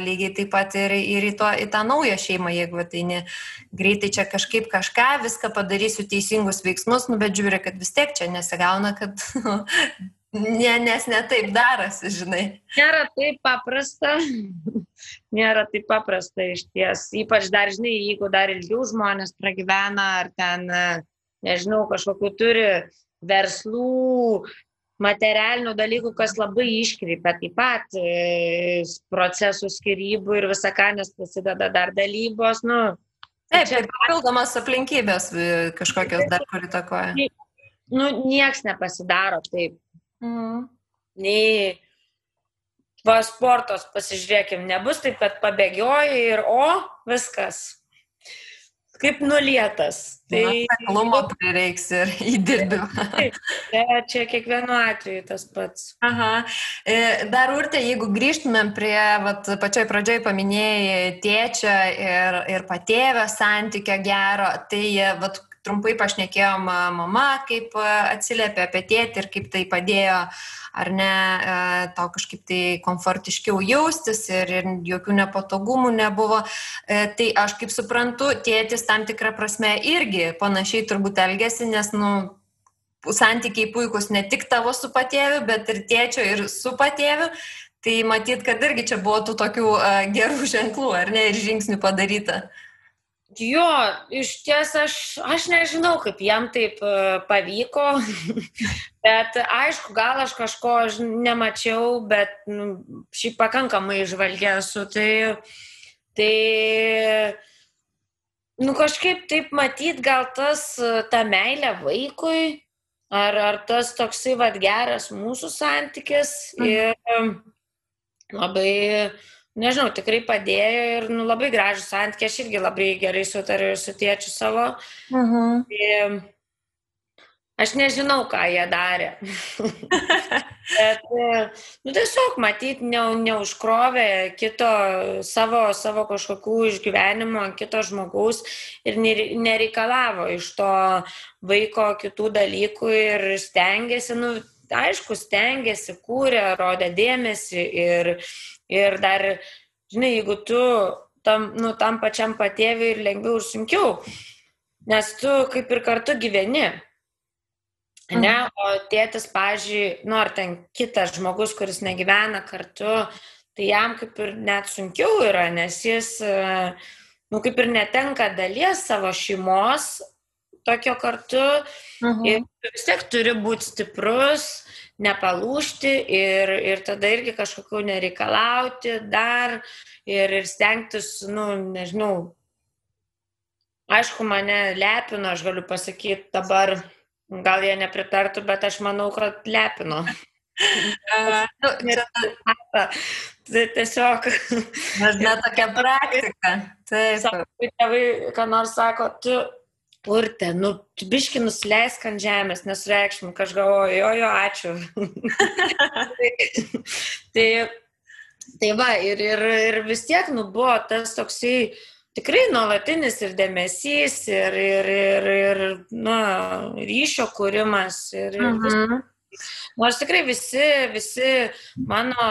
S1: lygiai taip pat ir į tą naują šeimą, jeigu ateini greitai čia kažkaip viską padarysiu teisingus veiksmus, bet žiūri, kad vis tiek čia nesigauna, kad nes ne taip darosi, žinai.
S2: Nėra taip paprasta iš ties. Ypač dar, žinai, jeigu dar ilgiau žmonės pragyvena, ar ten, nežinau, kažkokių turi verslų, materialinių dalykų, kas labai iškreipia taip pat procesų skyrybų ir visą ką, nes prasideda dar dalybos.
S1: Taip, ir papildomas aplinkybės kažkokios dar kur įtakoja.
S2: Nieks nepasidaro taip. Nei sportos pasižiūrėkim, nebus taip, kad pabėgioji ir viskas. Kaip nulietas.
S1: Klumo prireiks ir įdirbiu.
S2: Taip, čia kiekvienu atveju tas pats.
S1: Dar, Urte, jeigu grįžtumėm prie, pačioj pradžioj paminėjai tėčio ir patėvio santykio gero, tai trumpai pašnekėjom mama, kaip atsiliepė apie tėtį ir kaip tai padėjo, ar ne, tau kažkaip tai komfortiškiau jaustis ir jokių nepatogumų nebuvo. Tai aš kaip suprantu, tėtis tam tikrą prasme irgi panašiai turbūt elgėsi, nes, santykiai puikus ne tik tavo su patėviu, bet ir tėčio ir su patėviu. Tai matyt, kad irgi čia buvo tų tokių gerų ženklų, ar ne, ir žingsnių padaryta.
S2: Jo, iš ties aš nežinau, kaip jam taip pavyko, bet aišku, gal aš kažko nemačiau, bet šiaip pakankamai žvalgė esu, tai kažkaip taip matyt, gal ta meilė vaikui, ar tas toksai geras mūsų santykis ir labai... Nežinau, tikrai padėjo ir labai gražų santykį, aš irgi labai gerai sutariu su tėčiu savo. Aš nežinau, ką jie darė. Bet, tiesiog matyt, neužkrovė kito savo kažkokių išgyvenimo ant kito žmogaus ir nereikalavo iš to vaiko kitų dalykų ir stengiasi, aišku, stengiasi, kūrė, rodė dėmesį ir dar, žinai, jeigu tu tam pačiam patėviui ir lengviau ir sunkiau, nes tu kaip ir kartu gyveni, ne, o tėtis, pavyzdžiui, ar ten kitas žmogus, kuris negyvena kartu, tai jam kaip ir net sunkiau yra, nes jis, kaip ir netenka dalies savo šeimos tokio kartu ir vis tiek turi būti stiprus, nepalūžti ir tada irgi kažkokių nereikalauti dar ir stengtis, nežinau, aišku, mane lepino, aš galiu pasakyti dabar, gal jie nepritartų, bet aš manau, kad lepino. Tai tiesiog.
S1: Dažna tokia praktika. Taip.
S2: Tėvai, ką nors sako, tu, Urte, tu biški nusileisk ant žemės, nesureikšmink, aš galvoju, jo, ačiū. Tai va, ir vis tiek, buvo tas toksai tikrai nuolatinis ir dėmesys, ir ryšio kūrimas. Nors tikrai visi mano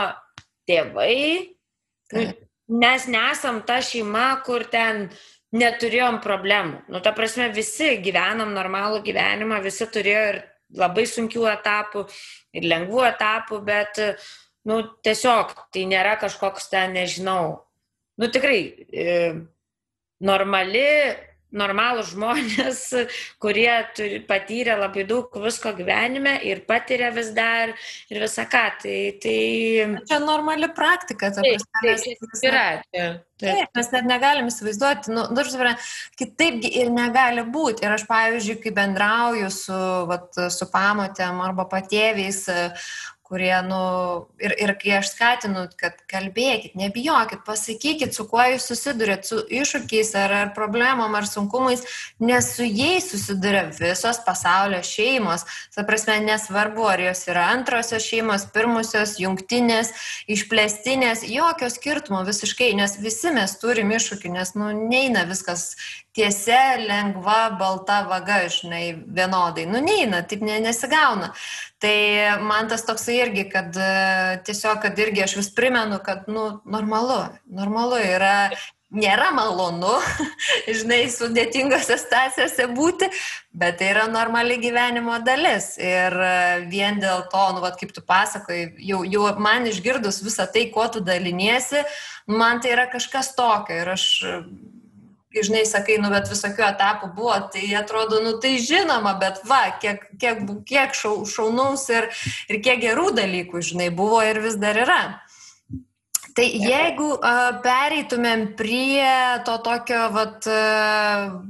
S2: tėvai, mes nesam ta šeima, kur ten neturėjom problemų. Ta prasme, visi gyvenam normalų gyvenimą, visi turėjo ir labai sunkių etapų, ir lengvų etapų, bet, tiesiog tai nėra kažkoks ten, nežinau, tikrai normalūs žmonės, kurie patyrė labai daug visko gyvenime ir patiria vis dar ir visą ką. Tai...
S1: Čia normali praktika.
S2: Taip, yra.
S1: Taip, mes net negalim įsivaizduoti, kitaipgi ir negali būti. Ir aš, pavyzdžiui, kai bendrauju su pamotėm arba patėviais, kurie, ir kai aš skatinu, kad kalbėkit, nebijokit, pasakykit, su kuo jūs susidurėt, su iššūkiais ar problemom ar sunkumais, nes su jais susiduria visos pasaulio šeimos. Ta prasme, nesvarbu, ar jos yra antrosios šeimos, pirmosios, jungtinės, išplėstinės, jokio skirtumo visiškai, nes visi mes turim iššūkių, nes neina viskas tiesia, lengva, balta vaga, vienodai. Neina, taip nesigauna. Tai man tas toksai irgi, kad tiesiog, kad irgi aš vis primenu, kad, normalu yra, nėra malonu, sudėtingose situacijose būti, bet tai yra normali gyvenimo dalis. Ir vien dėl to, kaip tu pasakoji, jau man išgirdus visą tai, kuo tu daliniesi, man tai yra kažkas tokio. Ir aš, sakai, bet visokių etapų buvo, tai atrodo, tai žinoma, bet kiek šaunaus ir kiek gerų dalykų, buvo ir vis dar yra. Tai jeigu pereitumėm prie to tokio,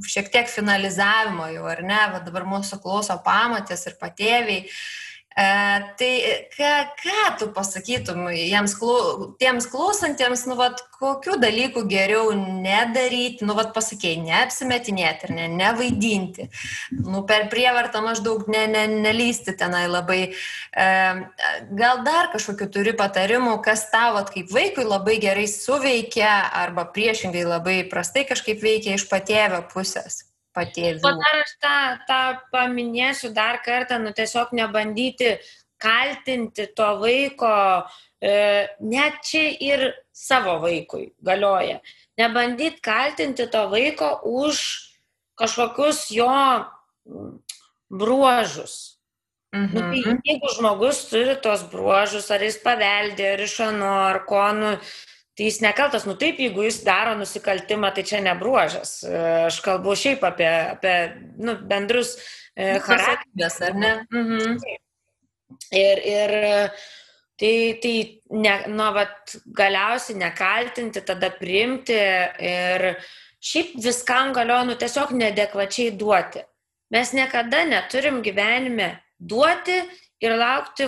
S1: šiek tiek finalizavimo jau, ar ne, dabar mūsų klauso pamotės ir patėviai, tai ką tu pasakytum tiems klausantiems, kokių dalykų geriau nedaryti, pasakėjai, neapsimetinėti ir nevaidinti, per prievartą maždaug nelysti tenai labai. Gal dar kažkokių turi patarimų, kas tau kaip vaikui labai gerai suveikia arba priešingai labai prastai kažkaip veikia iš patėvio pusės?
S2: Dar aš tą paminėsiu dar kartą, tiesiog nebandyti kaltinti to vaiko, net čia ir savo vaikui galioja. Nebandyti kaltinti to vaiko už kažkokius jo bruožus. Tai jeigu žmogus turi tos bruožus, ar jis paveldė, ar iš ano, ar ko, tai jis nekaltas. Taip, jeigu jis daro nusikaltimą, tai čia ne bruožas. Aš kalbu šiaip apie bendrus charakterius, ar ne? Ir tai galiausiai nekaltinti, tada priimti ir šiaip viskam galioja, tiesiog neadekvačiai duoti. Mes niekada neturim gyvenime duoti ir laukti,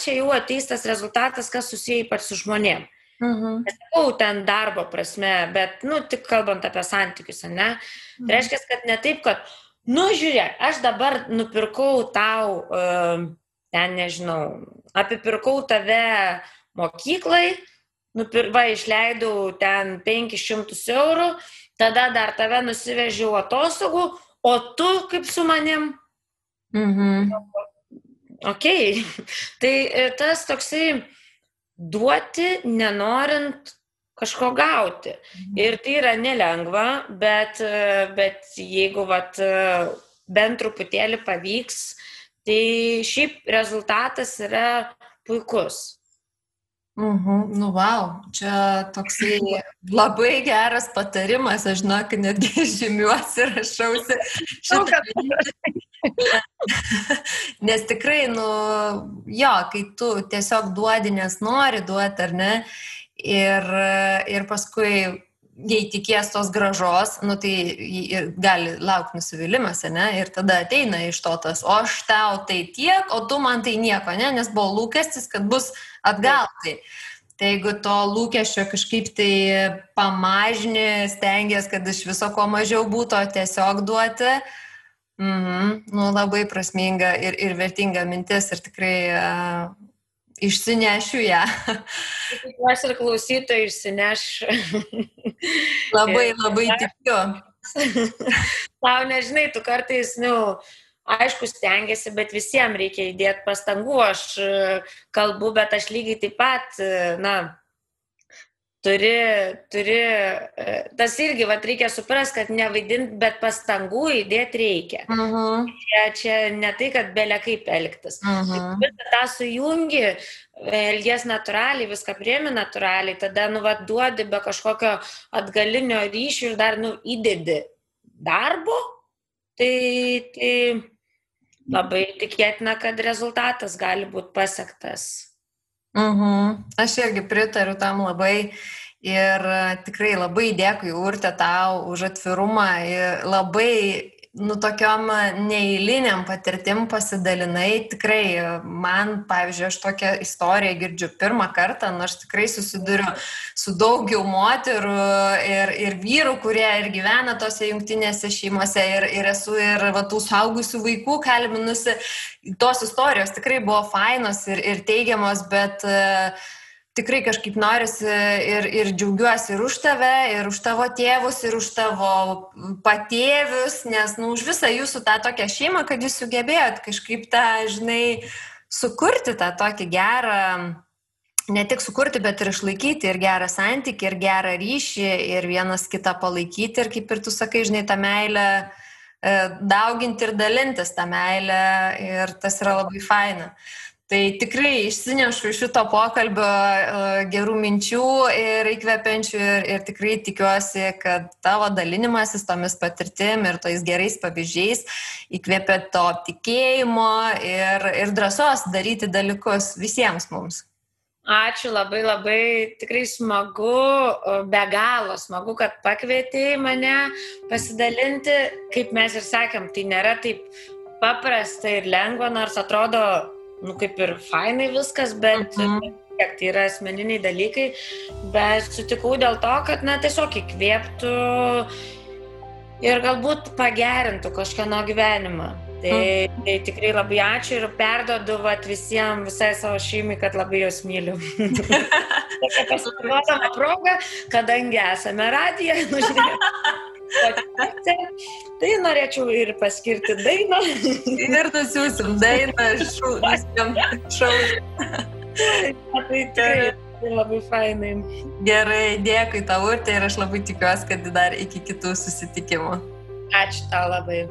S2: čia jau ateis tas rezultatas, kas susiję ypač su žmonėm. Nesakau ten darbo prasme, bet, tik kalbant apie santykius, ne? Tai reiškia, kad ne taip, kad, žiūrėk, aš dabar nupirkau tau, ten nežinau, apipirkau tave mokyklai, išleidau ten 500 eurų, tada dar tave nusivežiau atostogų, o tu kaip su manim? Okay. Tai tas toksai duoti, nenorint kažko gauti. Ir tai yra nelengva, bet jeigu bent truputėlį pavyks, tai šiaip rezultatas yra puikus.
S1: Vau, čia toksai labai geras patarimas, aš žinok, netgi žymiuosi, rašausi šitą. Nes tikrai, kai tu tiesiog duodi, nes nori duoti, ar ne, ir paskui jei tikės tos gražos, nu tai ir gali laukti nusivylimas, ne? Ir tada ateina iš to tas, o aš tau tai tiek, o tu man tai nieko, ne? Nes buvo lūkestis, kad bus atgal. Tai jeigu to lūkesčio kažkaip tai pamažini, stengies, kad iš viso ko mažiau būtų, tiesiog duoti, nu, labai prasminga ir vertinga mintis ir tikrai išsinešiu ją.
S2: Tikiuosi ir klausytojai išsineš.
S1: Labai tikiu.
S2: Tau nežinai, tu kartais, aišku, stengiasi, bet visiems reikia įdėti pastangų. Aš kalbu, bet aš lygiai taip pat, turi, tas irgi, reikia suprasti, kad nevaidinti, bet pastangų įdėti reikia. Čia ne tai, kad belia kaip elgtis. Visą tą sujungi, elgies natūraliai, viską priemi natūraliai, tada, duodi be kažkokio atgalinio ryšio ir dar, įdedi darbo, tai labai tikėtina, kad rezultatas gali būti pasiektas.
S1: Aš irgi pritariu tam labai ir tikrai labai dėkui, Urte, tau už atvirumą ir labai, tokiom neeiliniam patirtim pasidalinai. Tikrai man, pavyzdžiui, aš tokią istoriją girdžiu pirmą kartą, aš tikrai susiduriu su daugiau moterų ir vyrų, kurie ir gyvena tose jungtinėse šeimose ir esu ir tų suaugusių vaikų kalbinusi. Tos istorijos tikrai buvo fainos ir teigiamos, bet tikrai kažkaip norisi ir džiaugiuosi ir už tave, ir už tavo tėvus, ir už tavo patėvius, nes už visą jūsų tą tokią šeimą, kad jūs sugebėjot kažkaip tą, sukurti tą tokį gerą, ne tik sukurti, bet ir išlaikyti ir gerą santykį, ir gerą ryšį, ir vienas kitą palaikyti, ir kaip ir tu sakai, tą meilę dauginti ir dalintis tą meilę, ir tas yra labai faina. Tai tikrai išsinešu iš šito pokalbio gerų minčių ir įkvepiančių ir tikrai tikiuosi, kad tavo dalinimasis tomis patirtim ir tais gerais pavyzdžiais įkvepia to tikėjimo ir drąsos daryti dalykus visiems mums.
S2: Ačiū, labai tikrai smagu, be galo smagu, kad pakvietei mane pasidalinti. Kaip mes ir sakėm, tai nėra taip paprasta ir lengva, nors atrodo, kaip ir fainai viskas, bet tai yra asmeniniai dalykai, bet sutikau dėl to, kad tiesiog įkvėptų ir galbūt pagerintų kažkieno gyvenimą. Tai tikrai labai ačiū ir perduodu visai savo šeimai, kad labai jos myliu. Tokia pasinaudodama proga, kadangi esame radiją, tai norėčiau ir paskirti dainą.
S1: Ir nusiųsim dainą šau.
S2: Tai tikrai labai fainai.
S1: Gerai, dėkui tau, Urte, ir aš labai tikiuosi, kad dar iki kitų susitikimų.
S2: Ačiū tau labai.